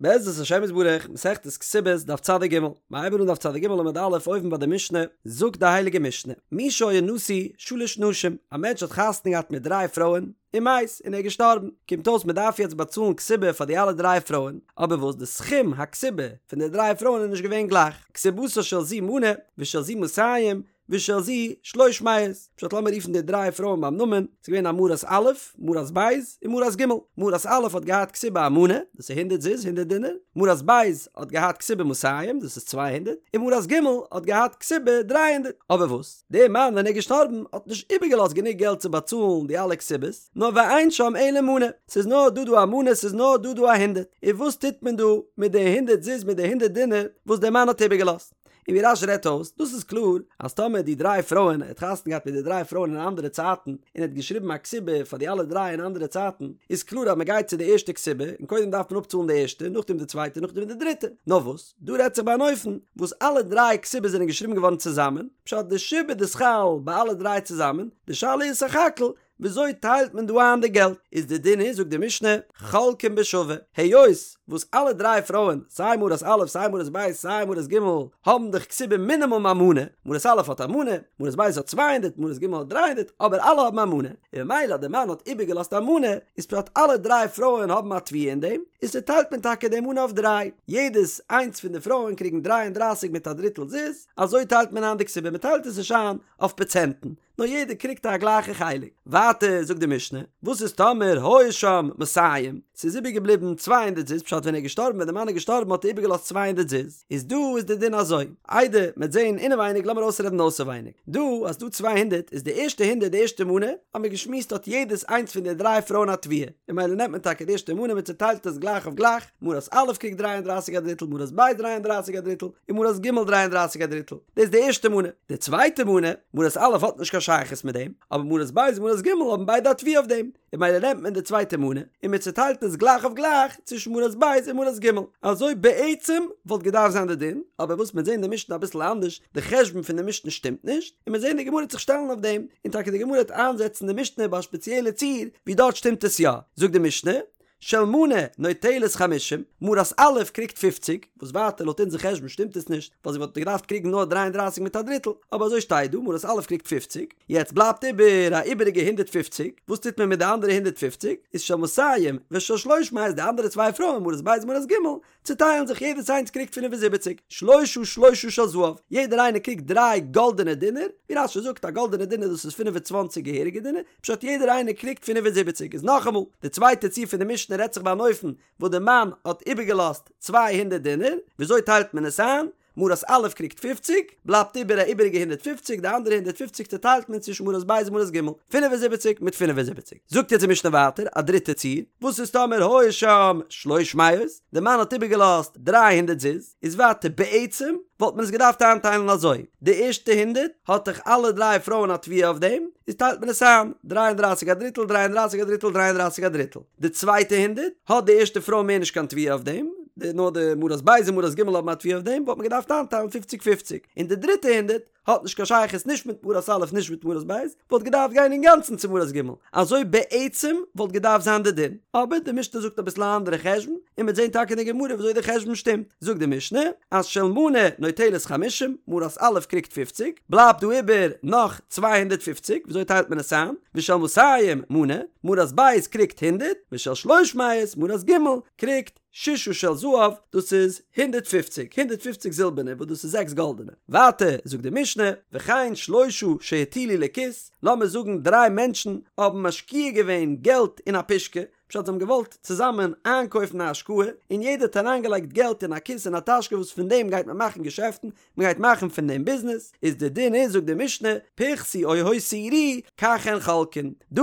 בעזרת השם יתברך, מסכת כתובות, דף צדיק ג', מ'הייבן אן דף צדיק ג' עמוד א' אויבן ביי די משנה, זאגט די הייליגע משנה, מי שהיה נשוי שלש נשים, א מענטש האט חתונה געהאט מיט דריי פרויען, ומת, און ער איז געשטארבן, קומט אויס מען דארף יעצט באצאלן כתובה פאר די אלע דריי פרויען, אבער וואס די סכום הכתובה פון די דריי פרויען איז נישט געווען גלייך, כתובתה של זו מנה, ושל זו מאתים, ושל זו שלש מאות, פשט לאמיר רופן די דריי פרויען ביים נאמען, ס'איז געווען א מרת א', מרת ב', און מרת ג'. מרת א' האט געהאט כתובה א מנה, דאס איז הונדערט זוז, הונדערט דינר, מרת ב' האט געהאט כתובה מאתים, דאס איז 200, און מרת ג' האט געהאט כתובה 300. אבער וואס? דער מאן ווען ער איז געשטארבן האט נישט איבערגעלאזט גענוג געלט צו באצאלן די אלע כתובות, נאר ואין שם אלא מנה, ס'איז נאר דא דא א מנה, ס'איז נאר דא דא א הונדערט. און וואס טוט מען דא מיט די הונדערט זוז מיט די הונדערט דינר וואס דער מאן האט איבערגעלאזט? און ווי רש"י רעדט אויס, דאס איז קלאר אז טאמער די דריי פרויען, ער האט חתונה געהאט מיט די דריי פרויען אין אנדערע צייטן, און ער האט געשריבן א כתובה פאר די אלע דריי אין אנדערע צייטן, איז קלאר אז מען גייט צו די ערשטע כתובה, און קודם דארף מען אפצאלן די ערשטע, נאכדעם די צווייטע, נאכדעם די דריטע. נאר וואס, דא רעדט זיך ביי אן אופן וואס אלע דריי כתובות זענען געשריבן געווארן צוזאמען, פשט די שעבוד איז חל ביי אלע דריי צוזאמען, די שאלה איז סך הכל וויאזוי טיילט מען דא איין די געלט? איז די דין איז זאגט די משנה, חולקין בשווה, היות וואס אלע דריי פרויען, סיי מרת א' סיי מרת ב' סיי מרת ג', האבן דאך כתובה מינימום א מנה, מרת א' האט א מנה, מרת ב' האט צוויי הונדערט, מרת ג' האט דריי הונדערט, אבער אלע האבן א מנה, און ממילא אז די מאן האט איבערגעלאזט א מנה, איז פשט אלע דריי פרויען האבן א תביעה אין דעם, איז צוטיילט מען טאקע די מנה אויף דריי, יעדעס איינס פון די פרויען קריגן דריי און דרייסיג מיט א דריטל זוז, אזוי טיילט מען איין די כתובה, מען טיילט עס נישט איין אויף פראצענטן, נאר יעדער קריגט א גלייכע חלק. ווייטער זאגט די משנה, וואס איז טאמער היו שם מאתים, ס'איז איבערגעבליבן צוויי הונדערט זוז, פשט ווען ער איז געשטארבן ווען די מאן איז געשטארבן האט ער איבערגעלאזט צוויי הונדערט זוז, איז דא איז די דין אזוי, איידער מ'עט זעהן אינעווייניג לאמיר אויסרעדן אויסערווייניג, דא אז ס'דא צוויי הונדערט איז די ערשטע הונדערט די ערשטע מנה, האמיר געשמועסט האט יעדעס איינס פון די דריי פרויען א תביעה, און ממילא נעמט מען טאקע די ערשטע מנה מען צוטיילט עס גלייך אויף גלייך, מרת א' קריגט דריי און דרייסיג א דריטל, מרת ב' דריי און דרייסיג א דריטל, און מרת ג' דריי און דרייסיג א דריטל. דאס איז די ערשטע מנה. די צווייטע מנה, מרת א' האט נישט קיין שייכות מיט דעם, אבער מרת ב' און מרת ג' האבן ביידע א תביעה אויף דעם, און ממילא נעמט מען די צווייטע מנה, און מען צוטיילט עס גלייך אויף גלייך צווישן מרת ב' און מרת ג'. אזוי בעצם וואלט געדארפט זיין די דין, אבער וואס מ'וועט זען די משנה אביסל אנדערש, די חשבון פון די משנה שטימט נישט, און מ'וועט זען די גמרא וועט זיך שטעלן אויף דעם, און טאקע די גמרא וועט איינזעצן די משנה ביי א שפעציעלע ציור ווי דארט שטימט עס יא. זאגט די משנה, של מנה נוטלת חמישים, מרת א' קריגט פופציג, וואס ווייטער לויט אונזער חשבון שטימט עס נישט, ווייל זי וואלט געדארפט קריגן נאר דריי און דרייסיג מיט א דריטל, אבער אזוי שטייט דא, מרת א' קריגט פופציג, יעצט בלייבט איבער א איבעריגע הונדערט פופציג, וואס טוט מען מיט די אנדערע הונדערט פופציג, איז של מאתים ושל שלוש מאות די אנדערע צוויי פרויען מרת ב' און מרת ג' צוטיילן זיך יעדעס איינס קריגט פינף און זיבעציק, שלושה שלושה של זהב, יעדער איינער קריגט דריי גאלדענע דינר, ווי רש"י זאגט א גאלדענע דינר דאס איז פינף און צוואנציג געהעריגע דינר, פשט יעדער איינער קריגט פינף און זיבעציק איז נאכאמאל, די צווייטע ציור פון די משנה רעדט זיך ביי אן אופן וואס די מאן האט איבערגעלאזט צוויי הונדערט דינר, וויאזוי טיילט מען עס איין? מרת א' קריגט פופציג, בלייבט איבער א איבעריגע הונדערט פופציג, די אנדערע הונדערט פופציג צוטיילט מען צווישן מרת ב' און מרת ג', 75 מיט 75. זאגט יעצט די משנה ווייטער א דריטע ציור, וואס איז טאמער היו שם שלוש מאות, די מאן האט איבערגעלאזט דריי הונדערט זוז, איז ווייטער בעצם וואלט מען עס געדארפט איינטיילן אזוי, די ערשטע הונדערט האט דאך אלע דריי פרויען א תביעה אויף דעם, איז טיילט מען עס איין, דריי און דרייסיג א דריטל, דריי און דרייסיג א דריטל, דריי און דרייסיג א דריטל. די צווייטע הונדערט האט די ערשטע פרוי מער נישט קיין תביעה אויף דעם, די נאר די מרת ב' און מרת ג' האבן א תביעה אויף דעם, וואלט מען געדארפט איינטיילן פופציג פופציג, און די דריטע הונדערט האט נישט קיין שייכות נישט מיט מרת א' נישט מיט מרת ב', וואלט געדארפט גיין אינגאנצן צו מרת ג', אזוי בעצם וואלט געדארפט זיין די דין, אבער די משנה זאגט אביסל א אנדערע חשבון, און מ'וועט זען טאקע אין די גמרא וויאזוי די חשבון שטימט, זאגט די משנה אז של מנה נוטלת חמישים, מרת א' קריגט פופציג, בלייבט דא איבער נאך 250, וויאזוי טיילט מען עס איין? ושל מאתים מנה, מרת ב' קריגט הונדערט, ושל שלוש מאות מרת ג' קריגט ששה של זהב, דאס איז הונדערט פופציג, הונדערט פופציג זילבערנע וואס דאס איז זעקס גאלדענע. ווייטער זאגט די משנה, וכן שלושה שהטילו לכיס, לאמיר זאגן דריי מענטשן האבן משקיע געווען געלט אין א פושקע, פשט זיי האבן געוואלט צוזאמען איינקויפן א השקעה, און יעדער האט אריינגעלייגט געלט אין א כיס אין א טאשקע וואס פון דעם גייט מען מאכן געשעפטן, מען גייט מאכן פון דעם ביזנעס, איז די דין איז זאגט די משנה, פחתו או הותירו, כך הן חולקין. דא,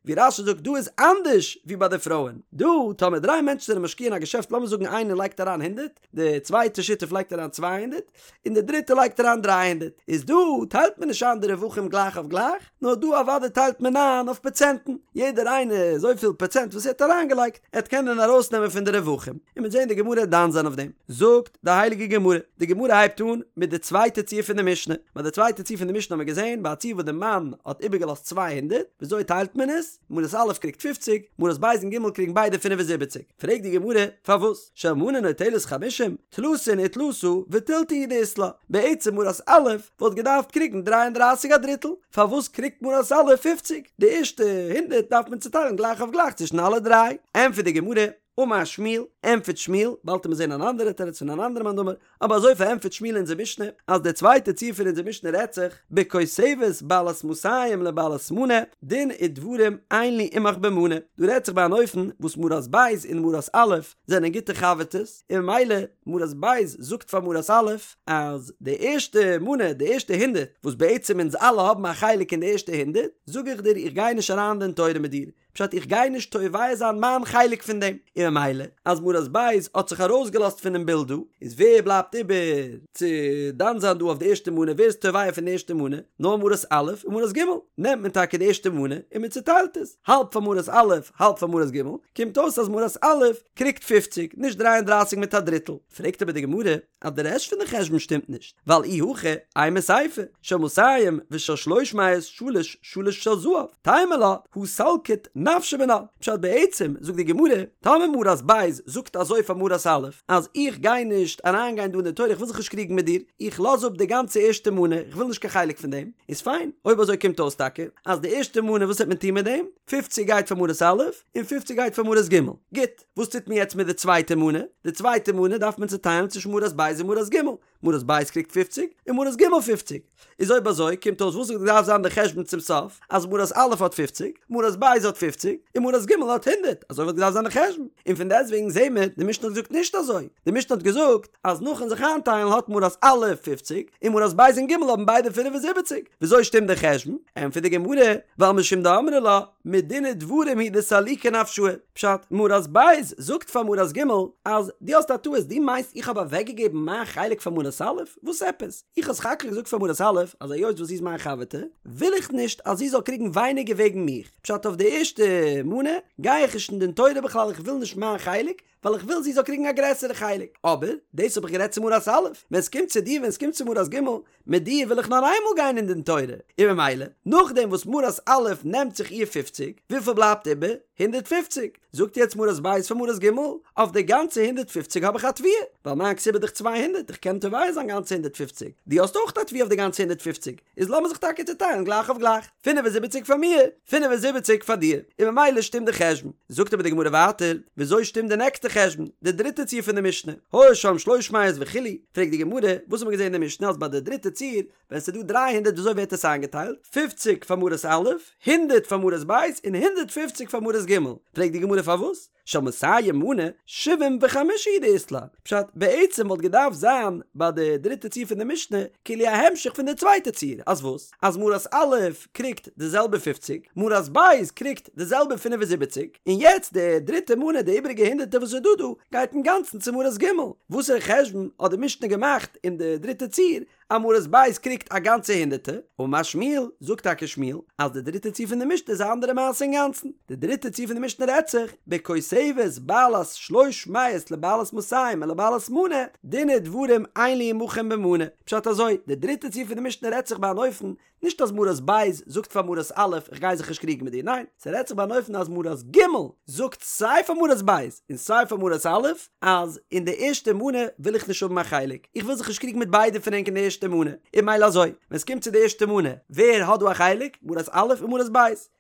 ווי רש"י זאגט דא איז אנדערש ווי ביי די פרויען. דא, טאמער דריי מענטשן זענען משקיע אין א געשעפט לאמיר זאגן איינער לייגט אריין הונדערט, די צווייטע שותף לייגט אריין 200, און די דריטע לייגט אריין 300, איז דא טיילט מען נישט איין די רווחים גלייך אויף גלייך, נאר דא אוודאי טיילט מען איין אויף פראצענטן, יעדער איינער אזויפיל פראצענט וואס ער האט אריינגעלייגט, ער וועט קענען ארויסנעמען פון די רווחים, און מ'וועט זען די גמרא דן זיין אויף דעם. זאגט די הייליגע גמרא, די גמרא הייבט אן מיט די צווייטע ציור פון די משנה, ביי די צווייטע ציור פון די משנה האבן מיר געזען ביי א ציור וואס די מאן האט איבערגעלאזט 200, וויאזוי טיילט מען עס? מרת א' קריגט פופציג, מרת ב' און ג' קריגן ביידע פינף און זיבעציג. פרעגט די גמרא, פארוואס? של מנה נוטלת חמישים, תלתין ותלתא ותילתא הוא דאית לה, בעצם מרת א' וואלט געדארפט קריגן דריי און דרייסיג א דריטל, פארוואס קריגט מרת א' פופציג? די ערשטע הונדערט דארף מען צוטיילן גלייך אויף גלייך צווישן אלע דריי. ענטפערט די גמרא, אמר שמואל, ענטפערט שמואל, באלד וועט מען זען אן אנדערע תירוץ פון אן אנדערע מאן דאמר, אבער אזוי פארענטפערט שמואל אונזער משנה, אז די צווייטע ציור פון אונזער משנה רעדט זיך, בכותבת בעלת מאתים לבעלת מנה, דין ודברים אין לי עמך במנה, דא רעדט זיך ביי אן אופן וואס מרת ב' און מרת א' זענען גוטע חבר'טעס, און ממילא מרת ב' זאגט פאר מרת א' אז די ערשטע מנה, די ערשטע הונדערט, וואס בעצם אונז אלע האבן א חלק אין די ערשטע הונדערט, זאג איך דיר איך גיי נישט אריין אין דין תורה מיט דיר, פשט איך גיי נישט תובע זיין מיין חלק פון דעם, און ממילא אז מרת ב' האט זיך ארויסגעלאזט פונעם בילד דא, איז ווער בלייבט איבער צו דן זיין דא אויף די ערשטע מנה, ווער איז תובע פון די ערשטע מנה, נאר מרת א' און מרת ג', נעמט מען טאקע די ערשטע מנה און מען צוטיילט עס, האלב פאר מרת א' האלב פאר מרת ג', קומט אויס אז מרת א' קריגט פופציג, נישט דריי און דרייסיג מיט א דריטל, פרעגט אבער די גמרא, אז די רעשט פון די חשבון שטימט נישט, ווייל אי הכי אימא סיפא, של מאתים ושל שלוש מאות שלש שלש של זהב, תימא לה הא סלקת נפשה מינה, פשט בעצם זאגט די גמרא, טאמער מרת ב' זאגט אזוי פאר מרת א', אז איך גיי נישט אריין גיין דא אין די תורה איך וויל זיך נישט קריגן מיט דיר, איך לאז אפ די גאנצע ערשטע מנה, איך וויל נישט קיין חלק פון דעם, איז פיין, אויב אזוי קומט אויס טאקע אז די ערשטע מנה וואס וועט מען טון מיט דעם, פופציג גייט פאר מרת א', און פופציג גייט פאר מרת ג', גוט. וואס טוט מען יעצט מיט די צווייטע מנה? די צווייטע מנה דארף מען צוטיילן צווישן מרת ב' און מרת ג', מרת ב' קריגט פופציג און מרת ג' פופציג. איז אויב אזוי קומט אויס וואס האט געדארפט זיין די חשבון צום סוף? אז מרת א' האט פופציג, מרת ב' האט פופציג, און מרת ג' האט הונדערט, אזוי וואלט געדארפט זיין די חשבון. און פון דעסטוועגן זעהן מיר, די משנה האט געזאגט נישט אזוי, די משנה האט געזאגט אז נאכן זיך איינטיילן האט מרת א' פופציג, און מרת ב' און ג' האבן ביידע פינף און זיבעציג. וויאזוי שטימט די חשבון? ענטפערט די גמרא, ווייל משום דאמרה לה, מדין ודברים הוא דסליקא נפשאי. פשט, מרת ב' זאגט פאר מרת ג' אז דו האסט א טעות, דו מיינסט איך האב אוועקגעגעבן מיין חלק פאר מרת א'? וואס עפעס? איך האב סך הכל געזאגט פאר מרת א' אז היות וואס זי איז מיין חבר'טע, וויל איך נישט אז זי זאל קריגן ווייניגער וועגן מיך, פשט אויף די ערשטע מנה גיי איך נישט אין דין תורה בכלל איך וויל נישט מיין חלק, ווייל איך וויל זי זאל קריגן א גרעסערע חלק, אבער דאס האב איך גערעדט צו מרת א', ווען עס קומט צו דיר ווען עס קומט צו מרת ג', מיט דיר וויל איך נאר איינמאל גיין אין דין תורה, און ממילא, נאכדעם וואס מרת א' נעמט זיך איר פופציג, וויפיל בלייבט איבער? הונדערט פופציג. זאגט יעצט מרת ב' פאר מרת ג', אויף די גאנצע הונדערט פופציג האב איך א תביעה, ווייל מיין כתובה איז דאך צוויי הונדערט, איך קען תובע זיין גאנצע הונדערט פופציג, דו האסט אויך א תביעה אויף די גאנצע הונדערט פופציג, איז לאמיר זיך טאקע צוטיילן גלייך אויף גלייך, פינף און זיבעציג פאר מיר, פינף און זיבעציג פאר דיר, און ממילא שטימט די חשבון. זאגט אבער די גמרא ווייטער, וויאזוי שטימט די נעקסטע חשבון, די דריטע ציור פון די משנה, היו שם שלוש מאות וכו', פרעגט די גמרא, וואס האט מען געזען אין די משנה אז ביי די דריטע ציור, ווען ס'איז דא דריי הונדערט וויאזוי ווערט עס איינגעטיילט, פופציג פאר מרת א', הונדערט פאר מרת ב', און הונדערט פופציג פאר מרת ג', פרעגט די גמרא פארוואס? של מאתים מנה, שבעים וחמשה הוא דאית לה, פשט, בעצם וואלט געדארפט זיין ביי די דריטע ציור פון די משנה, כאילו א המשך פון די צווייטע ציור, אז וואס? אז מרת א' קריגט די זעלבע פופציג, מרת ב' קריגט די זעלבע פינף און זיבעציג, און יעצט די דריטע מנה, די איבעריגע הונדערטער וואס איז דא דא, גייט אינגאנצן צו מרת ג'. וואסערע חשבון האט די משנה געמאכט אין די דריטע ציור, אז מרת ב' קריגט א גאנצע הונדערטער, אמר שמואל, זאגט טאקע שמואל, אז די דריטע ציור פון די משנה איז א אנדערע מעשה אינגאנצן, די דריטע ציור פון די משנה רעדט זיך, בכותבת בעלת שלוש מאות לבעלת מאתים ולבעלת מנה, דין ודברים אין לי עמכם במנה, פשט אזוי, די דריטע ציור פון די משנה רעדט זיך ביי אן אופן, נישט אז מרת ב' זאגט פאר מרת א' איך גיי זיך נישט קריגן מיט דיר, ניין, ס'רעדט זיך ביי אן אופן אז מרת ג' זאגט סיי פאר מרת ב' און סיי פאר מרת א' אז אין די ערשטע מנה וויל איך נישט האבן א חלק, איך וויל זיך נישט קריגן מיט ביידע פון ענק אין די ערשטע מנה, און ממילא אזוי, ווען ס'קומט צו די ערשטע מנה, ווער האט דא א חלק? מרת א' און מרת ב'.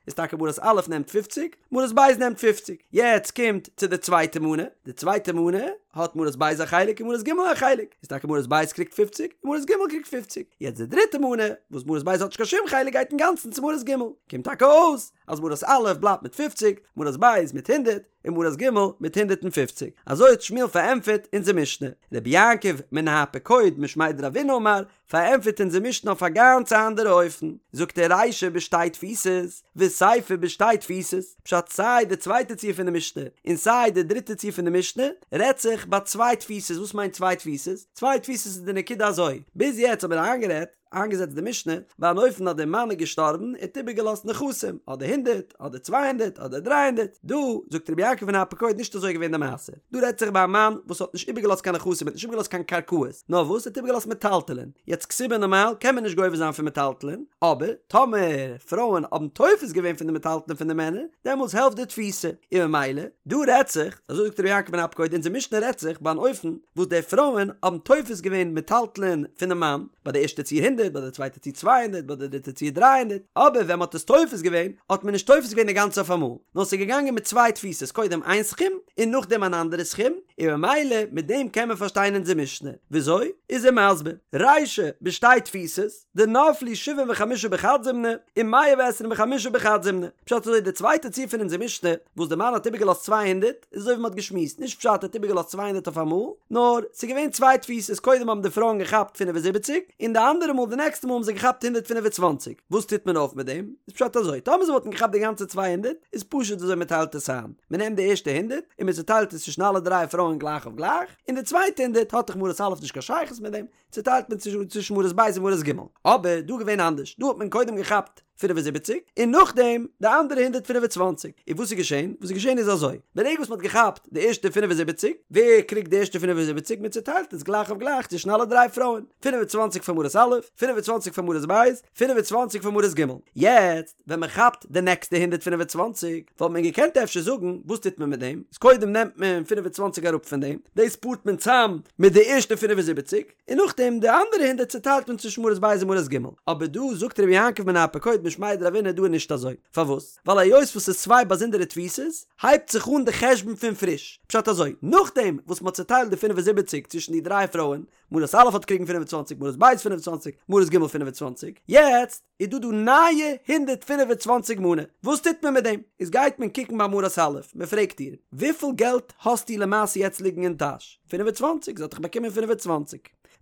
איז טאקע מרת א' נעמט פופציג, מרת ב' נעמט פופציג. יעצט קומט צו די צווייטע מנה, די צווייטע מנה האט מרת ב' א חלק און מרת ג' א חלק, איז טאקע מרת ב' קריגט פופציג און מרת ג' קריגט פופציג. יעצט די דריטע מנה, וואס מרת ב' האט נישט קיין שום חלק גייט אינגאנצן צו מרת ג'. קומט טאקע אויס אז מרת א' בלייבט מיט פופציג, מרת ב' מיט הונדערט, און מרת ג' מיט הונדערט און פופציג. אזוי האט שמואל פארענטפערט אונזער משנה. רבי יעקב מנהר פקוד משמיה דרבינא אמר, פארענטפערט אונזער משנה אויף א גאנץ אנדערע אופן, זאגט ער רישא בשתי תפיסות, וסיפא בשתי תפיסות, פשט סיי די צווייטע ציור פון די משנה, און סיי די דריטע ציור פון די משנה, רעדט זיך ביי צוויי תפיסות, וואס מיינט צוויי תפיסות? צוויי תפיסות איז די נקודה אזוי, ביז יעצט האבן מיר איינגערעדט. איינגעזעצט די משנה ביי אן אופן אז דער מאן איז געשטארבן, ער האט איבערגעלאזט נכסים, אדער הונדערט, אדער 200, אדער 300, דא זאגט רבי יעקב מני אפיקורד נישט אזוי געווען די מעשה, דא רעדט זיך ביי א מאן וואס האט נישט איבערגעלאזט קיין נכסים, ער האט נישט איבערגעלאזט קיין קרקעות, נאר וואס ער האט איבערגעלאזט מטלטלין, יעצט כתובה נארמאל קען מען נישט גובה זיין פון מטלטלין, אבער טאמער פרויען האבן תופס געווען פון די מטלטלין פון די מענער, דעמאלטס העלפט די תפיסה, און ממילא דא רעדט זיך, אזוי זאגט רבי יעקב מני אפיקורד, אונזער משנה רעדט זיך ביי אן אופן וואס די פרויען האבן תופס געווען מטלטלין פונעם מאן, ביי די ערשטע ציור הונדערט, ביי די צווייטע ציור 200, ביי די דריטע ציור 300, אבער ווען מ'האט עס תופס געווען, האט מען נישט תופס געווען די גאנצע אויף אמאל, נאר ס'איז געגאנגען מיט צוויי תפיסות, קודם איין סכום, און נאכדעם אן אנדערע סכום, און ממילא מיט דעם קען מען פארשטיין אונזער משנה. וויאזוי? איז ער מסביר, רישא בשתי תפיסות, דנפלו שבעים וחמשה בחד זימנא, ומאה ועשרים וחמשה בחד זימנא. פשט אזוי די צווייטע ציור פון אונזער משנה, וואס די מאן האט איבערגעלאזט 200, איז אזוי ווי מ'האט געשמועסט, נישט פשט ער האט איבערגעלאזט 200 אויף אמאל, נאר ס'איז געווען צוויי תפיסות, קודם האבן די פרויען געכאפט 75, און די אנדערע מאל די נעקסטע מאל האבן זיי געכאפט 125. וואס טוט מען אויף מיט דעם? איז פשט אזוי, טאמער זיי וואלטן געכאפט די גאנצע 200, איז פשוט וויאזוי מ'טיילט עס איין, מ'נעמט די ערשטע הונדערט און מ'צוטיילט עס צווישן אלע דריי פרויען גלייך אויף גלייך, און די צווייטע הונדערט האט דאך מרת א' נישט קיין שייכות מיט דעם, צוטיילט מען צווישן מרת ב' און מרת ג'. אבער דא געווען אנדערש, דא האט מען קודם געכאפט 75 און נאכדעם די אנדערע 125. און וואס איז געשען? וואס איז געשען איז אזוי, ברגע וואס מען האט געכאפט די ערשטע 75, ווער קריגט די ערשטע 75? מען צוטיילט עס גלייך אויף גלייך צווישן אלע דריי פרויען, 25 פאר מרת א', 25 פאר מרת ב', 25 פאר מרת ג'. יעצט ווען מען כאפט די נעקסטע 125, וואלט מען געקענט אפשר זאגן, וואס טוט מען מיט דעם? איז קודם נעמט מען 25 אראפ פון דעם, דאס פארט מען צאם מיט די ערשטע 75, און נאכדעם די אנדערע הונדערט צוטיילט מען צווישן מרת ב' און מרת ג'. אבער דא זאגט רבי יעקב מני אפיקורד משמיה דרבינא דא איז נישט אזוי. פארוואס? ווייל היות וואס ס'איז צוויי באזונדערע תפיסות, הייבט זיך אן די חשבון פון פריש. פשט אזוי, נאכדעם וואס מ'האט צוטיילט די 75 צווישן די דריי פרויען, מרת א' האט קריגן 25, מרת ב' 25, מרת ג' 25, יעצט איז דא דא נייע 125 מנה, וואס טוט מען מיט דעם? איז גייט מען קוקן ביי מרת א', מען פרעגט איר, וויפיל געלט האסטו למעשה יעצט ליגן אין טאש? 25, זי האט דאך באקומען 25,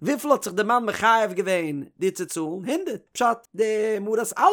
וויפיל האט זיך די מאן מחייב געווען דיר צו צאלן? הונדערט, פשט, די מרת א'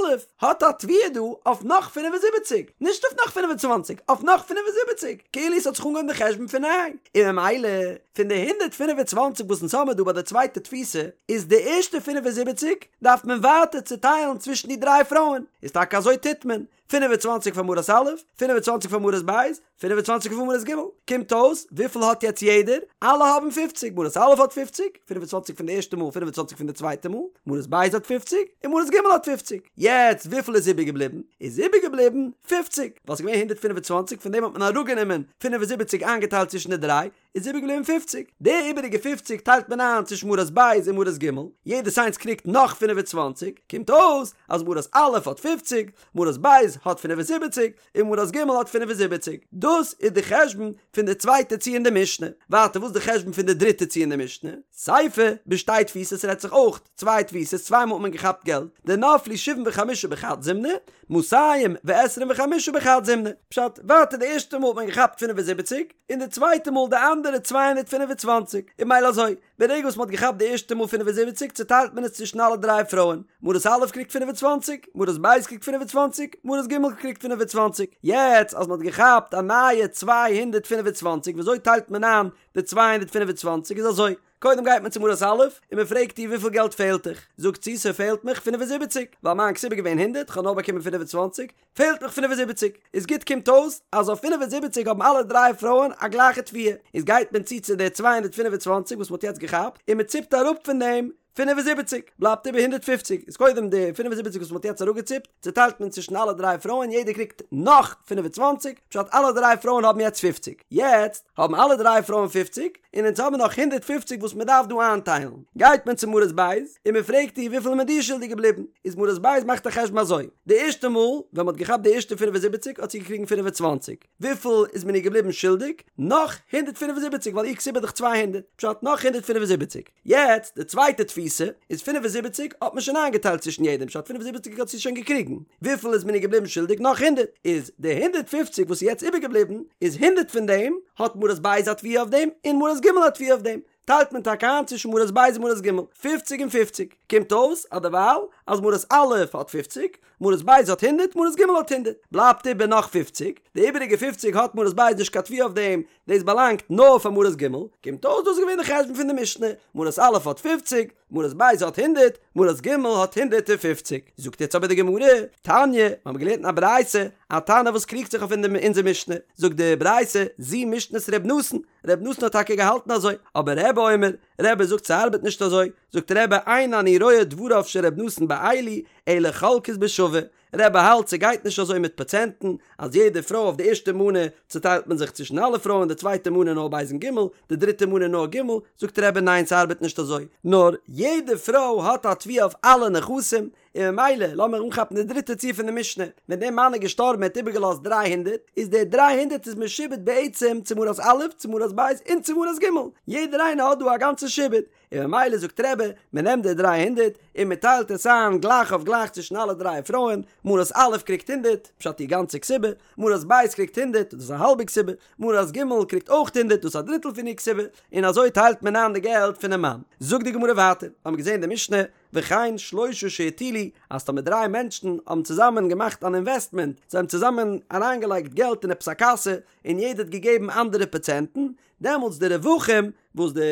האט א תביעה דא אויף נאך 75, נישט אויף נאך 25, אויף נאך 75, כאילו עס האט זיך אנגעהויבן די חשבון פון ניי, און ממילא פון די 125 וואס אונז האמיר דא ביי די צווייטע תפיסה, איז די ערשטע 75 דארף מען ווייטער צוטיילן צווישן די דריי פרויען, איז טאקע אזוי טוט מען, 25 פאר מרת א', 25 פאר מרת ב', 25 פאר מרת ג', קומט אויס וויפיל האט יעצט יעדער? אלע האבן 50, מרת א' האט 50, 25 פון די ערשטע מאל, 25 פון די צווייטע מאל, מרת ב' האט 50, און מרת ג' האט 50, יעצט וויפיל איז איבערגעבליבן? איז איבערגעבליבן 50, ווייל ס'איז געווען 125 פון דעם האט מען אראפגענומען 75 איינגעטיילט צווישן די דריי, איז איבערגעבליבן פופציג. די איבעריגע פופציג טיילט מען איין צווישן מרת ב' און מרת ג', יעדעס איינס קריגט נאך 25, קומט אויס אז מרת א' האט פופציג, מרת ב' האט 75, און מרת ג' האט 75. דאס איז די חשבון פון די צווייטע ציור אין די משנה. ווייטער וואס איז די חשבון פון די דריטע ציור אין די משנה? סיפא, בשתי תפיסות רעדט זיך אויך צוויי תפיסות, צוויי מאל האט מען געכאפט געלט, דנפלו שבעים וחמשה בחד זימנא, מאתים ועשרים וחמשה בחד זימנא. פשט, ווייטער די ערשטע מאל האט מען געכאפט 75, און די צווייטע מאל די אנדערע 225, און ממילא אזוי, ברגע וואס מען האט געכאפט די ערשטע מאל 75 צוטיילט מען עס צווישן אלע דריי פרויען, מרת א' קריגט 25, מרת ב' קריגט 25, מרת ג' קריגט 25, יעצט אז מען האט געכאפט א נייע 225 וויאזוי טיילט מען איין די 225 איז אזוי, קודם גייט מען צו מרת א' און מען פרעגט איר וויפיל געלט פעלט דיך, זאגט זי ס'פעלט מיך 75, ווייל מיין כתובה איז געווען הונדערט, כ'האב נאר באקומען 25, פעלט מיך 75, איז גוט קומט אויס אז אויף 75 האבן אלע דריי פרויען א גלייכע תביעה, איז גייט מען צו צו די 225 וואס מען האט יעצט געכאפט און מען ציפט אראפ פון דעם 75, בלייבט איבער 150, איז קודם די 75 וואס מען האט יעצט אראפגעציפט צוטיילט מען צווישן אלע דריי פרויען יעדער קריגט נאך 25, פשט אלע דריי פרויען האבן יעצט 50, יעצט האבן אלע דריי פרויען 50, און אונז האבן נאך 150 וואס מען דארף דא איינטיילן, גייט מען צו מרת בית און מען פרעגט איר וויפיל איז מען דיר שולדיג געבליבן, איז מרת בית מאכט א חשבון אזוי, די ערשטע מאל ווען מען האט געכאפט די ערשטע 75 האט זי געקריגן 25, וויפיל איז מען איר געבליבן שולדיג? נאך 175 ווייל איר כתובה איז דאך 200, פשט נאך 175, יעצט די צווייטע תפיסה איז 75 האט מען שוין איינגעטיילט צווישן יעדעם פשט 75 האט זי שוין געקריגן, וויפיל איז מען איר געבליבן שולדיג? נאך הונדערט, איז די הונדערט פופציג וואס איז יעצט איבערגעבליבן איז הונדערט פון דעם האט מרת בית א תביעה אויף דעם און מרת ג' א תביעה אויף דעם. טיילט מען טאקע איין צווישן מרת ב' און מרת ג', פופציג און פופציג, קומט אויס אז דערווייל אז מרת א' האט פופציג, מרת ב' האט הונדערט, מרת ג' האט הונדערט, בלייבט איבער נאך פופציג, די איבעריגע פופציג האט מרת ב' נישט קיין תביעה אויף דעם, דאס באלאנגט נאר פאר מרת ג', קומט אויס דאס איז געווען די חשבון פון די משנה, מרת א' האט פופציג, מרת ב' האט הונדערט, מרת ג' האט הונדערט און פופציג. זאגט יעצט אבער די גמרא, תניא, מיר האבן געלערנט אין א ברייתא, א תנא וואס קריגט זיך אויף אונזער משנה, זאגט די ברייתא, זו משנת ר' נתן, ר' נתן האט טאקע געהאלטן אזוי, אבער רבי אומר, רבי זאגט ס'ארבעט נישט אזוי, זאגט רבי אין אני רואה דבריו של ר' נתן באלו, אלא חולקות בשווה, רבי האלט ס'גייט נישט אזוי מיט פראצענטן, אז יעדע פרוי אויף די ערשטע מנה צוטיילט מען זיך צווישן אלע פרויען די צווייטע מנה נאר ב' און ג', די דריטע מנה נאר ג', זאגט רבי ניין ס'ארבעט נישט אזוי, נאר יעדע פרוי האט א תביעה אויף אלע נכסים, און ממילא לאמיר אנכאפן די דריטע ציור פון די משנה, ווען דער מאן איז געשטארבן ער האט איבערגעלאזט דריי הונדערט, איז די דריי הונדערט איז משועבד בעצם צו מרת א', צו מרת ב', און צו מרת ג', יעדער איינער האט דא א גאנצע שעבוד, און ממילא זאגט רבי, מען נעמט די דריי הונדערט און מען טיילט עס איין גלייך אויף גלייך צווישן אלע דריי פרויען, מרת א' קריגט הונדערט, פשט איר גאנצע כתובה, מרת ב' קריגט הונדערט, דאס איז א האלבע כתובה, מרת ג' קריגט אויך הונדערט, דאס איז א דריטל פון איר כתובה, און אזוי טיילט מען איין די געלט פונעם מאן. זאגט די גמרא ווייטער, האבן מיר געזען די משנה, וכן שלושה שהטילו, אז טאמער דריי מענטשן האבן צוזאמען געמאכט אן אינוועסטמענט, זיי האבן צוזאמען אריינגעלייגט געלט אין עפעס א קאסע, און יעדער האט געגעבן אנדערע פראצענטן, דעמאלטס די רווחים וואס די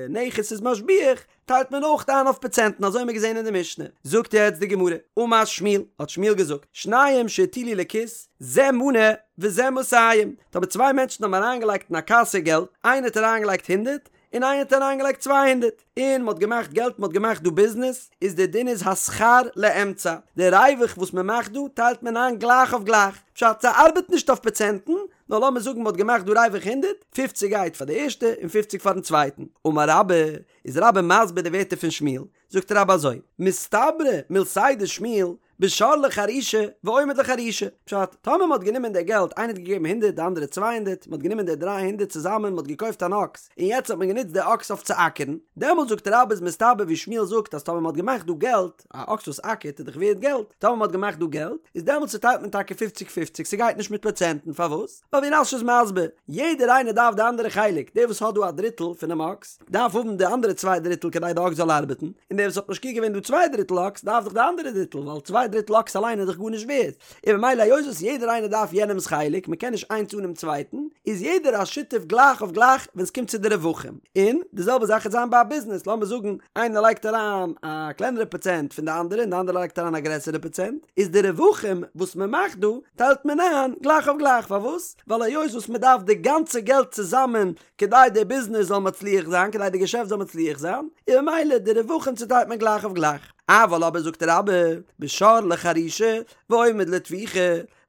נכס איז משביח טיילט מען אויך איין אויף פראצענטן אזוי האבן מיר געזען אין די משנה. זאגט יעצט די גמרא, אמר שמואל, האט שמואל געזאגט, שניים שהטילו לכיס, זה מנה וזה מאתים, טאמער צוויי מענטשן האבן אריינגעלייגט אין א קאסע געלט, איינער האט אריינגעלייגט הונדערט, און איינער האט אריינגעלייגט צוויי הונדערט, און מ'האט געמאכט געלט, מ'האט געמאכט דא ביזנעס, איז די דין איז השכר לאמצע, די ריווח וואס מ'מאכט דא טיילט מען איין גלייך אויף גלייך, פשט ס'ארבעט נישט אויף פראצענטן, נאר לאמיר זאגן מ'האט געמאכט דא ריווח הונדערט, פופציג גייט פאר די ערשטע און פופציג פארן צווייטן. אמר רבה, איז רבה מסביר די ווערטער פון שמואל, זאגט רבה אזוי, מסתברא מילתיה דשמואל, בשור לחרישה ועומד לחרישה, פשט, טאמער מ'האט גענומען די געלט, איינער האט געגעבן הונדערט די אנדערע צוויי הונדערט, מ'האט גענומען די דריי הונדערט צוזאמען מ'האט געקויפט אן אקס, און יעצט האט מען גענוצט די אקס אויף צו אקערן, דעמאלט זאגט רבה איז מסתבר ווי שמואל זאגט אז טאמער מ'האט געמאכט דא געלט, א אקס וואס אקערט איז דאך ווערד געלט, טאמער מ'האט געמאכט דא געלט, איז דעמאלטס צוטיילט מען טאקע פופציג פופציג, ס'גייט נישט מיט פראצענטן, פארוואס? ווייל ווי רש"י איז מסביר, יעדער איינער דארף די אנדערע חלק, דער וואס האט דא א דריטל פונעם אקס, דארף האבן די אנדערע צוויי דריטל כדי די אקס זאל ארבעטן, און דער וואס האט משקיע געווען דא צוויי דריטל אקס דארף דאך די אנדערע דריטל, ווייל צוויי דריטל אקס אליין איז דאך גארנישט ווערד, און ממילא היות וואס יעדער איינער דארף יענעמ'ס חלק, מ'קען נישט איינס אנעם צווייטן, איז יעדער א שותף גלייך אויף גלייך ווען ס'קומט צו די רווחים. און די זעלבע זאך וועט זיין ביי א ביזנעס, לאמיר זאגן איינער לייגט אריין א קלענערע פראצענט פון די אנדערע און די אנדערע לייגט אריין א גרעסערע פראצענט, איז די רווחים וואס מ'מאכט דא טיילט מען איין גלייך אויף גלייך, פארוואס? ווייל היות וואס מ'דארף די גאנצע געלט צוזאמען כדי די ביזנעס זאל מצליח זיין, כדי די געשעפט זאל מצליח זיין, און ממילא די רווחים צוטיילט מען גלייך אויף גלייך. אבל אבער זאגט רבה, בשור לחרישה ועומד לטביחה,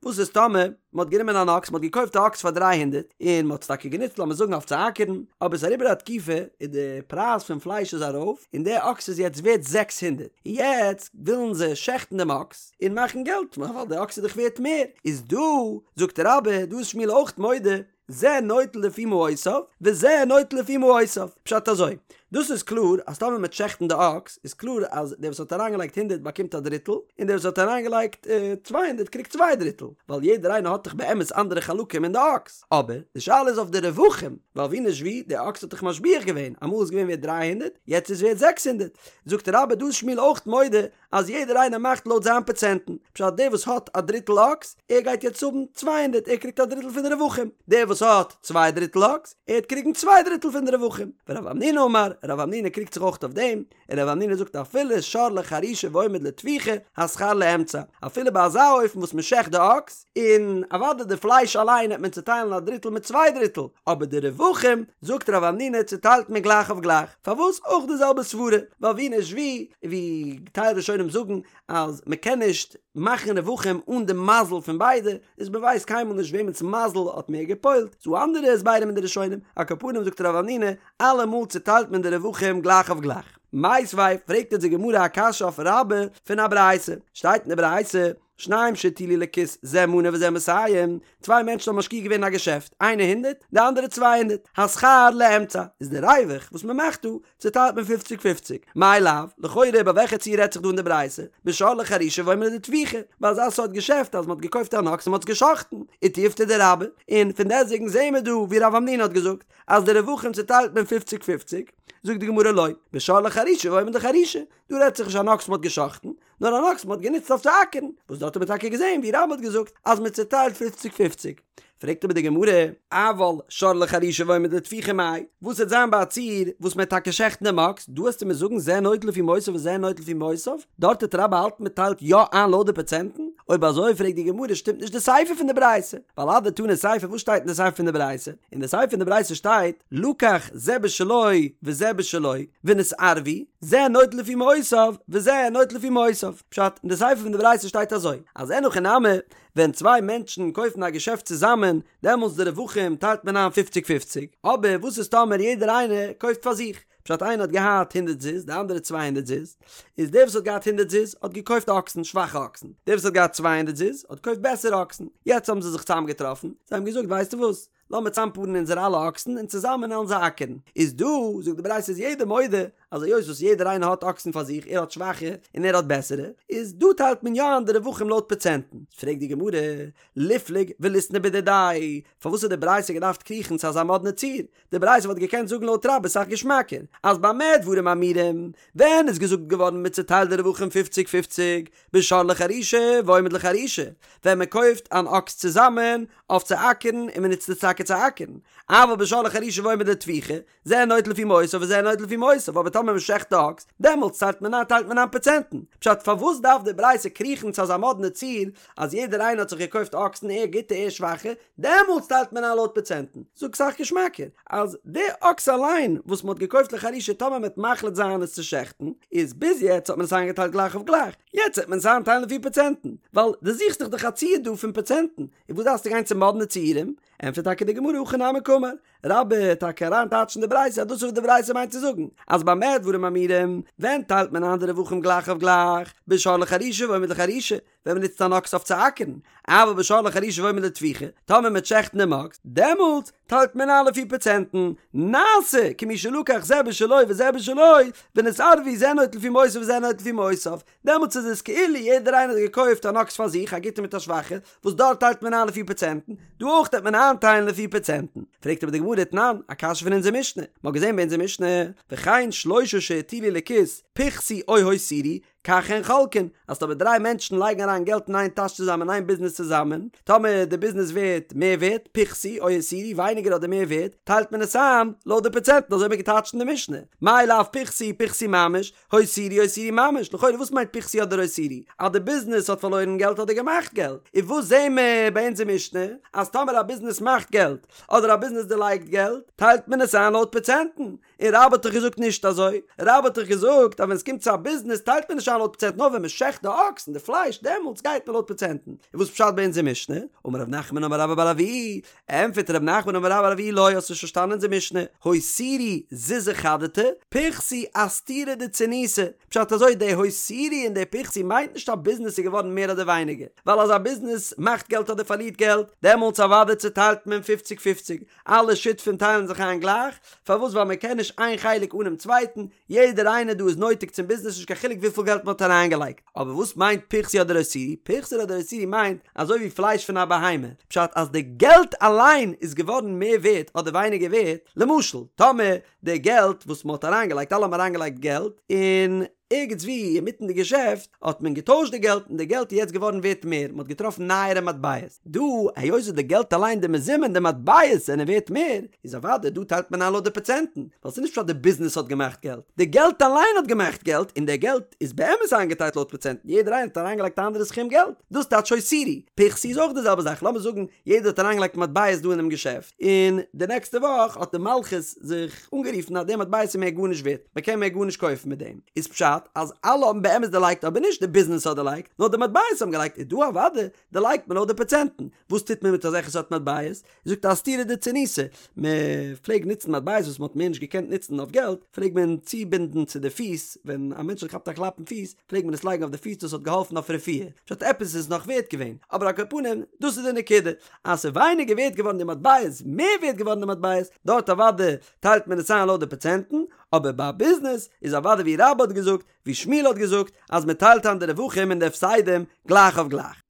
וואס איז טאמער מען האט גענומען אן אקס, מען האט געקויפט א אקס פאר דריי הונדערט, און מען האט עס טאקע גענוצט לאמיר זאגן אויף צו אקערן, אבער עס איז אריבער א תקופה און די פרייז פון פלייש איז ארויף, און די אקס איז יעצט ווערט זעקס הונדערט, און יעצט ווילן זיי שעכטן דעם אקס און מאכן געלט, ווייל די אקס איז דאך ווערט מער, איז דא, זאגט רבה, דא איז שמואל אויך מודה, זה נוטל לפי מעותיו, וזה נוטל לפי מעותיו. פשט אזוי, דאס איז קלאר אז טאמער מ'וועט שעכטן די אקס, איז קלאר אז דער וואס האט אריינגעלייגט הונדערט באקומט א דריטל, און דער וואס האט אריינגעלייגט צוויי הונדערט קריגט צוויי דריטל, ווייל יעדער איינער האט דאך באמת אנדערע חלקים אין די אקס. אבער, די שאלה איז אויף די רווחים, ווייל ווי נישט ווי, די אקס האט דאך משביח געווען, אמאל איז געווען ווערט דריי הונדערט, יעצט איז ווערט זעקס הונדערט. זאגט רבה דא איז שמואל אויך מודה אז יעדער איינער מאכט לויט זיין פראצענטן, פשט דער וואס האט א דריטל אקס, ער גייט יעצט האבן צוויי הונדערט, ער קריגט א דריטל פון די רווחים, דער וואס האט צוויי דריטל אקס, ער וועט קריגן צוויי דריטל פון די רווחים. ורב המנונא אמר, רב המנונא קריגט זיך אויך אויף דעם, און רב המנונא זאגט אפילו שור לחרישה ועומד לטביחה, השכר לאמצע, אפילו ביי אזא אופן וואס מען שעכט די אקס, און אוודאי די פלייש אליין העט מען צוטיילן א דריטל מיט צוויי דריטל, אבער די רווחים, זאגט רב המנונא, צוטיילט מען גלייך אויף גלייך. פארוואס אויך די זעלבע סברה? ווייל ווי נישט ווי, ווי טייל ראשונים זאגן אז מען קען נישט מאכן רווחים אן די מזל פון ביידע, איז מען ווייסט קיינמאל נישט וועמענס מזל האט מער געפועלט, ס'דא אנדערע הסברים אין די ראשונים, על כל פנים זאגט רב המנונא, אלעמאל צוטיילט מען די רווחים גלייך אויף גלייך. מיתיבי, פרעגט אונז די גמרא א קשיא אויף רבה פון א ברייתא, שטייט אין די ברייתא, שניים שהטילו לכיס זה מנה וזה מאתים, צוויי מענטשן האבן משקיע געווען אין א געשעפט, איינער הונדערט, די אנדערע צוויי הונדערט, השכר לאמצע, איז די ריווח וואס מען מאכט דא, צוטיילט מען פופציג פופציג, מאי לאו, לכאורה ביי וועלכע ציור רעדט זיך דא אין די ברייתא, בשור לחרישה ועומד לטביחה, ביי אזא סארט געשעפט אז מען האט געקויפט אן אקס און מען האט עס גע'שחט'ן, ותיובתא דרבה, און פון דעסטוועגן זעהן מיר דא ווי רב המנונא האט געזאגט אז די רווחים צוטיילט מען פופציג פופציג, זאגט די גמרא לא, בשור לחרישה ועומד לחרישה, דא רעדט זיך נישט אן אקס מען האט גע'שחט'ן, נאר אן אקס מען האט גענוצט אויף צו אקערן, וואס דארט האט מען טאקע געזען ווי רבה האט געזאגט אז מען צוטיילט פופציג פופציג. פרעגט אבער די גמרא, אבל שור לחרישה ועומד לטביחה מאי, וואס וועט זיין ביי א ציור וואס מען וועט טאקע שעכטן דעם אקס, דא וועסטו מיר זאגן זה נוטל לפי מעותיו וזה נוטל לפי מעותיו, דארט וועט רבה האלטן מען טיילט יא איין לויט די פראצענטן, אויב אזוי פרעגט די גמרא שטימט נישט די סיפא פון די ברייתא, ווייל אדתני סיפא וואס שטייט אין די סיפא פון די ברייתא? אין די סיפא פון די ברייתא שטייט לקח זה בשלו וזה בשלו ונתערבו, זה נוטל לפי מעותיו וזה נוטל לפי מעותיו. פשט, אין די סיפא פון די ברייתא שטייט אזוי, אז אין הכי נמי, ווען צוויי מענטשן קויפן א געשעפט צוזאמען, דעמאלטס די רווחים טיילט מען איין פופציג פופציג, אבער וואס איז טאמער יעדער איינער קויפט פאר זיך? פשט, איינער האט געהאט הונדערט זוז, די אנדערע צוויי הונדערט זוז, איז דער וואס האט געהאט הונדערט זוז האט געקויפט אקסן, שוואכע אקסן, דער וואס האט געהאט צוויי הונדערט זוז האט געקויפט בעסערע אקסן, יעצט האבן זיי זיך צוזאמגעטראפן, זיי האבן געזאגט ווייסטו וואס, לאמיר צאמפארן אונזערע אלע אקסן און צוזאמען עלן זיי אקערן. איז דא, זאגט די ברייתא איז יעדער מודה אז היות וואס יעדער איינער האט אקסן פאר זיך, ער האט שוואכע און ער האט בעסערע, איז דא טיילט מען יא איין די רווחים לויט פראצענטן. פרעגט די גמרא, ליפלוג וליתני בדידיה, פארוואס האט די ברייתא געדארפט קריכן צו אזא מאדנע ציור? די ברייתא וואלט געקענט זאגן לויט רבה סאך געשמאקער, אז במה דברים אמורים, ווען איז געזאגט געווארן מען צוטיילט די רווחים פופציג פופציג, בשור לחרישה ועומד לחרישה, ווען מען קויפט אן אקס צוזאמען אויף צו אקערן און מען נוצט עס טאקע צו אקערן, אבל בשור לחרישה ועומד לטביחה, זה נוטל לפי מעותיו וזה נוטל לפי מעותיו, אבער טאמער מען שעכט די אקס, דעמאלטס טיילט מען איין טיילט מען איין פראצענטן. פשט, פארוואס דארף די ברייתא קריכן צו אזא מאדנע ציור אז יעדער איינער האט זיך געקויפט אקסן ער גוטע ער שוואכע, דעמאלטס טיילט מען איין לויט פראצענטן. זאג סאך געשמאקער, אז די אקס אליין וואס מען האט געקויפט לחרישה טאמער מען וועט מחליט זיין עס צו שעכטן, איז ביז יעצט האט מען עס איינגעטיילט גלייך אויף גלייך, יעצט וועט מען עס איינטיילן לפי פראצענטן, ווייל דו זוכסט דאך דאך א ציור דא פון פראצענטן, און וואס דארפסטו גיין צו מאדנע ציורים? ענטפערט טאקע די גמרא הכי נמי קאמר, רבה וועט טאקע אריין טייטשן די ברייתא אז דאס איז וואס די ברייתא מיינט צו זאגן, אז במה דברים אמורים, ווען טיילט מען איין די רווחים גלייך אויף גלייך, בשור לחרישה ועומד לחרישה, ווען מען נוצט אן אקס אויף צו אקערן, אבל בשור לחרישה ועומד לטביחה, טאמער מען וועט שעכטן דעם אקס, דעמאלטס טיילט מען איין לפי פראצענטן, נעשה כמי שלקח זה בשלו וזה בשלו, ונתערבו זה נוטל לפי מעותיו וזה נוטל לפי מעותיו, דעמאלטס איז עס כאילו יעדער איינער האט געקויפט אן אקס פאר זיך, א גוטע מיט א שוואכע, וואס דארט טיילט מען איין לפי פראצענטן, דא אויך וועט מען איינטיילן לפי פראצענטן. פרעגט אבער די גמרא תנן, א קשיא פון אונזער משנה, מען האט געזען ביי אונזער משנה, וכן שלושה שהטילו לכיס, פחתו או הותירו, כך הן חולקין, אז טאמער דריי מענטשן לייגן אריין געלט אין איין טאש צוזאמען אין איין ביזנעס צוזאמען, טאמער די ביזנעס ווערט מער ווערט, פחתו או הותירו, ווייניגער אדער מער ווערט, טיילט מען עס איין לויט די פראצענטן, אזוי האט מען געטייטשט אין די משנה, מאי לאו פחתו פחתו ממש, הותירו הותירו ממש, לכאורה וואס מיינט פחתו אדער הותירו? אז די ביזנעס האט פארלוירן געלט אדער געמאכט געלט? און וואס זעהן מיר ביי אונזער משנה? אז טאמער א ביזנעס מאכט געלט אדער א ביזנעס דערלייגט געלט, טיילט מען עס איין לויט פראצענטן. און רבה האט דאך געזאגט נישט אזוי, רבה האט דאך געזאגט אז ווען עס קומט צו א ביזנעס טיילט מען נישט איין לויט פראצענט נאר ווען מען שעכט די אקס און די פלייש דעמאלטס גייט מען לויט פראצענטן. און וואס פשט ביי אונזער משנה? אמר רב נחמן אמר רבה בר אבוה, ענטפערט רב נחמן אמר רבה בר אבוה לא האסט נישט פארשטאנען אונזער משנה, הותירו זוזי חדתי, פחתו אסתירא דצוניתא, פשט אזוי די הותירו און די פחתו מיינט נישט א ביזנעס איז געווארן מער אדער ווייניגער, ווייל אז א ביזנעס מאכט געלט אדער פארלירט געלט, דעמאלטס אוודאי צוטיילט מען פופציג פופציג, אלע שותפים טיילן זיך איין גלייך, פארוואס ווייל מען קען נישט איין חלק אנעם צווייטן, יעדער איינער דא איז נויטיג צום ביזנעס נישט קיין חילוק וויפיל געלט מען האט אריינגעלייגט. אבער וואס מיינט פחתו אדער הותירו? פחתו אדער הותירו מיינט אזוי ווי פלייש פון א בהמה, פשט אז די געלט אליין איז געווארן מער ווערט אדער ווייניגער ווערט, למשל טאמער די געלט וואס מען האט אריינגעלייגט אלע האבן אריינגעלייגט געלט און ערגעץ ווי אינמיטן די געשעפט האט מען געטוישט די געלט און די געלט איז יעצט געווארן ווערט מער, מען האט געטראפן נייערע מטבעות, דא היות וואס די געלט אליין די מזומן די מטבעות זענען ווערט מער, איז אוודאי דא טיילט מען איין לויט די פראצענטן, ווייל ס'איז נישט פשט די ביזנעס האט געמאכט געלט, די געלט אליין האט געמאכט געלט און די געלט איז באמת איינגעטיילט לויט פראצענטן, יעדער איינער האט אריינגעלייגט א אנדערע סכום געלט, דאס טייטש הותירו. פחתו איז אויך די זעלבע זאך, לאמיר זאגן יעדער האט אריינגעלייגט מטבעות דא אינעם געשעפט, און די נעקסטע וואך האט די מלכות זיך אנגערופן אז די מטבעות איז מער גארנישט ווערט, מען קען מער גארנישט קויפן מיט דעם, איז פשט? פשט אז אלע האבן באמת דערלייגט אבער נישט די ביזנעס האט דערלייגט נאר די מטבעות האבן געלייגט איז דא אוודאי דערלייגט מען לויט די פראצענטן, וואס טוט מען מיט אזעלכע סארט מטבעות? זאגט אסתירא דצורניתא, מען פלעג נוצן מטבעות וואס מען האט מער נישט געקענט נוצן אויף געלט, פלעג מען צובינדן צו די פיס, ווען א מענטש האט געכאפט א קלאפ אין פיס, פלעג מען עס לייגן אויף די פיס דאס האט געהאלפן אויף רפואה, פשט עפעס איז נאך ווערט געווען, אבער על כל פנים דאס איז די נקודה, אז ס'איז ווייניגער ווערט געווארן די מטבעות, מער ווערט געווארן די מטבעות, דארט אוודאי טיילט מען עס איין לויט די פראצענטן, אבער ביי א ביזנעס איז אוודאי ווי רבה האט געזאגט, ווי שמואל האט געזאגט, אז מען טיילט איין די רווחים און די הפסדים גלייך אויף גלייך.